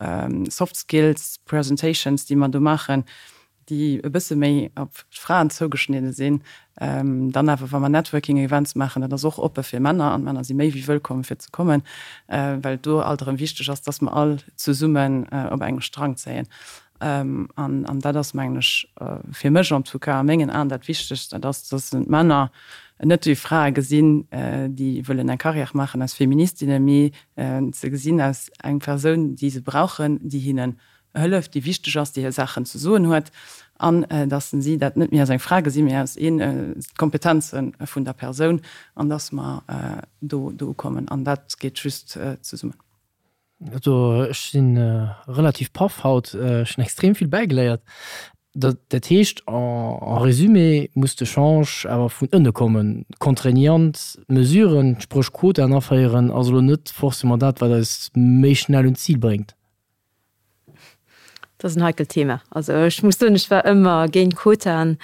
Soft Skills Presentations, déi mer do maachen, déi e bësse méi op d'Fraen zougeschnidde sinn. Dann awer, wa mer Networking Events maachen, dat ass och oppe fir Männer an d'Männer si méi wéi wëllkomm fir ze kommen, well do alt erëm wichteg ass, dass mer all zesummen op engem Strang zéien. An dat ass, mengen ech, fir mech en tout cas a mengen Aen dat Wichtegst, dat ass, dass d'Männer net déi Frae gesinn, déi wëllen eng Carrière maachen als Feministinnen, mee ze gesinn als eng Persoun, déi se brauchen, déi hinnen. Hëlleft, déi wichteg ass, déi hir Saachen ze soen huet, an dass si dat net méi als eng Fra gesinn, mee als een d'Kompetenze vun der Persoun, an dass mer do do ukommen. An dat geet just zesummen. Also ech si relativ paff haut, ech hunn extrem vill bäigeléiert. Dat heescht en résumé muss de Change awer vun ënne kommen. Contraignant Mesuren, spréch Quotaen aféieren, ass elo net forcément dat, wat eis méi schnell un d'Zil bréngt. Dat ass en heikelt Thema. Also ech muss soen, ech war ëmmer géint Quotaen.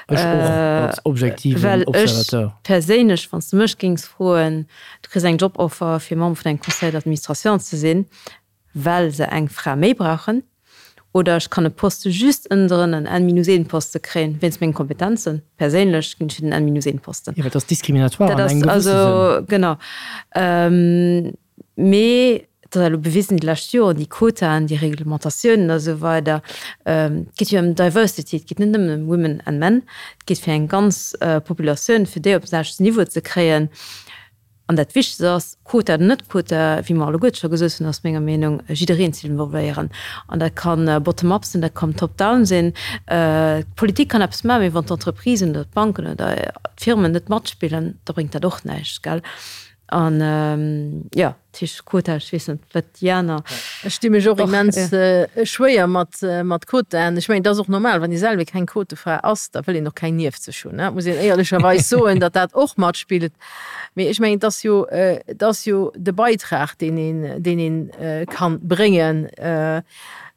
Ech och, als objektiven Observateur. Well ech perséinlech, wann s de mech géings froen, du kriss eng Joboffer fir Member vun engem Conseil d'administration ze sinn, well se eng Fra méi brauchen, oder ech kann e Poste just ënnendrën, en N-minus-een-Poste kréien, wéinst mengen Kompetenzen, perséinlech ginn ech fir den N-minus-een-Posten. Jo, well dat ass diskriminatoire an engem gewësse Sënn. Dat ass also, genau. Mee et ass elo bewisen déi lescht Joren, déi Quotaen, déi Reglementatiounen a sou weider, et geet jo ëm Diversity, et geet net nëmmen ëm Women and Men, et geet fir eng ganz Populatioun, fir déi op den selwechten Niveau ze kréien. An dat Wichtegst ass, Quota oder net Quota, wéi mer alleguerte scho gesot hunn, ass menger Meenung, jiddereen ze involvéieren. An dat ka bottom-up sinn, dat kann top-down sinn. D'Politik kann eppes maachen, mee wann d'Entreprisen oder d'Banken oder d'Firmen net matspillen, da bréngt dat och näischt, gell. An jo, dat heescht Quota, ech weess net, wat déi aner. Ech di mech och immens schwéier mat mat Quotaen. Ech mengen, et ass och normal, wann ee selwer keng Quotefra ass, da wëll een och keng nieft sech hunn, muss een éierlecherweis soen, datt dat och matspillt. Mee ech mengen, et ass jo, et ass jo de Beitrag, deen een, deen een kann bréngen.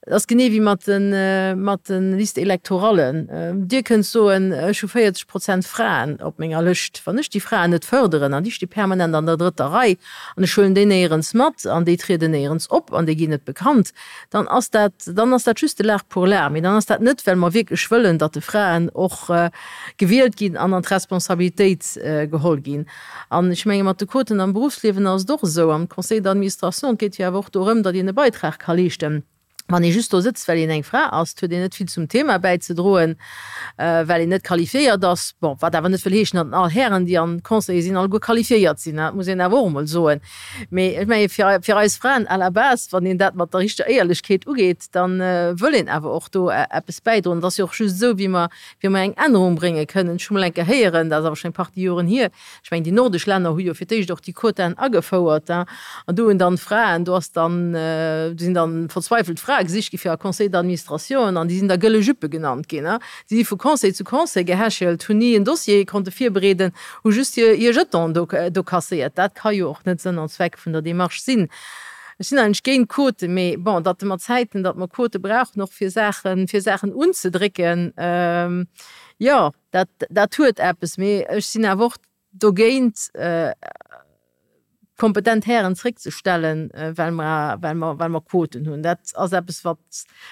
Et ass genee wéi mat de mat de Listes électorallen. Dir kënnt soen, ech hu 40 Prozent Fraen op menger Lëscht. Wann ech déi Fraen net fërderen an déi sti permanent an der drëtter Rei an ech huelen déi néierens mat an déi trieden néierens op an déi ginn net bekannt, dann ass dat, dann ass dat juste l'art pour l'art. Mee dann ass dat net, well mer wierklech wëllen, datt de Fraen och gewielt ginn an an d'Responsabilitéit geholl ginn. An ech menge mat de Quoten am Berufsliewen ass et och esou, am Conseil d'administration, et geet jo awer och dorëm, datt een e Beitrag ka leeschten. Wann ee just do sëtzt, well een eng Fra ass, huet een net vill zum Thema bäizedroen, well een net qualifiéiert ass. Bon, wat awer net wëll heeschen, datt all Hären, déi an Conseiller sinn, alleguer qualifiéiert sinn, dat muss een awer och emol soen. Mee ech menge fir, fir eis Fraen à la base, wann een dat mat der richteger Éierlechkeet ugeet, da wëll een awer och do eppes bäidroen. Et ass jo och just esou, wéi mer wéi mer eng Ännerung brénge kënnen. Ech hu mol eng Kéier héieren, dat ass awer schonn eng Partie Joren hier, ech mengen déi nordesch Länner hu jo fir d'éischt och déi Quotaen agefouert, an do hunn dann d'Fraen, do ass dann, do sinn dann verzweifelt Frae gesicht gi fir a Conseil d'administration an déi sinn da gëlle Juppe genannt ginn. Déi si vu Conseil zu Conseil gehechelt, hunn ni en Dossier konnte virbereeden, hu just hir Jeton do do kasséiert. Dat ka jo och net Sënn an Zweck vun der Démarche sinn. Ech sinn eigentlech géint Quoten, mee bon, datt mer Zäiten, datt mer Quote brauchen och fir Saachen, fir Saachen unzedrécken, jo, dat, dat huet eppes. Mee ech sinn awer och dogéint, kompetent Hären zréckzestellen, well mer, well mer, well mer Quoten hunn. Dat ass eppes, wat,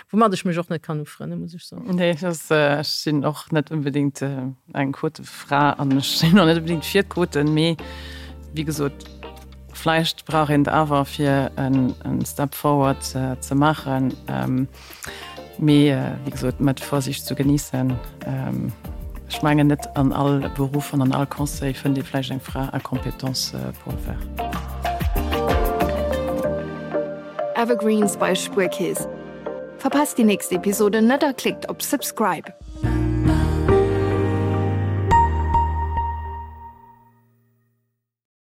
woumat ech mech och net kann ufrënnen, muss ech soen. Nee, dat, ech sinn och net unbedéngt eng Quotefra an ech sinn och net unbedéngt fir d'Quoten, mee wéi gesot, Vläicht brauch een et awer fir en Step forward ze maachen, mee wéi gesot mat Vorsicht zu genießen. Ech mengen net an all Beruff an an all Conseil fënnt ee vläicht eng Fra à compétence pour le faire. Evergreens bei Spuerkeess. Verpasst déi nächst Episode net a klickt op Subscribe.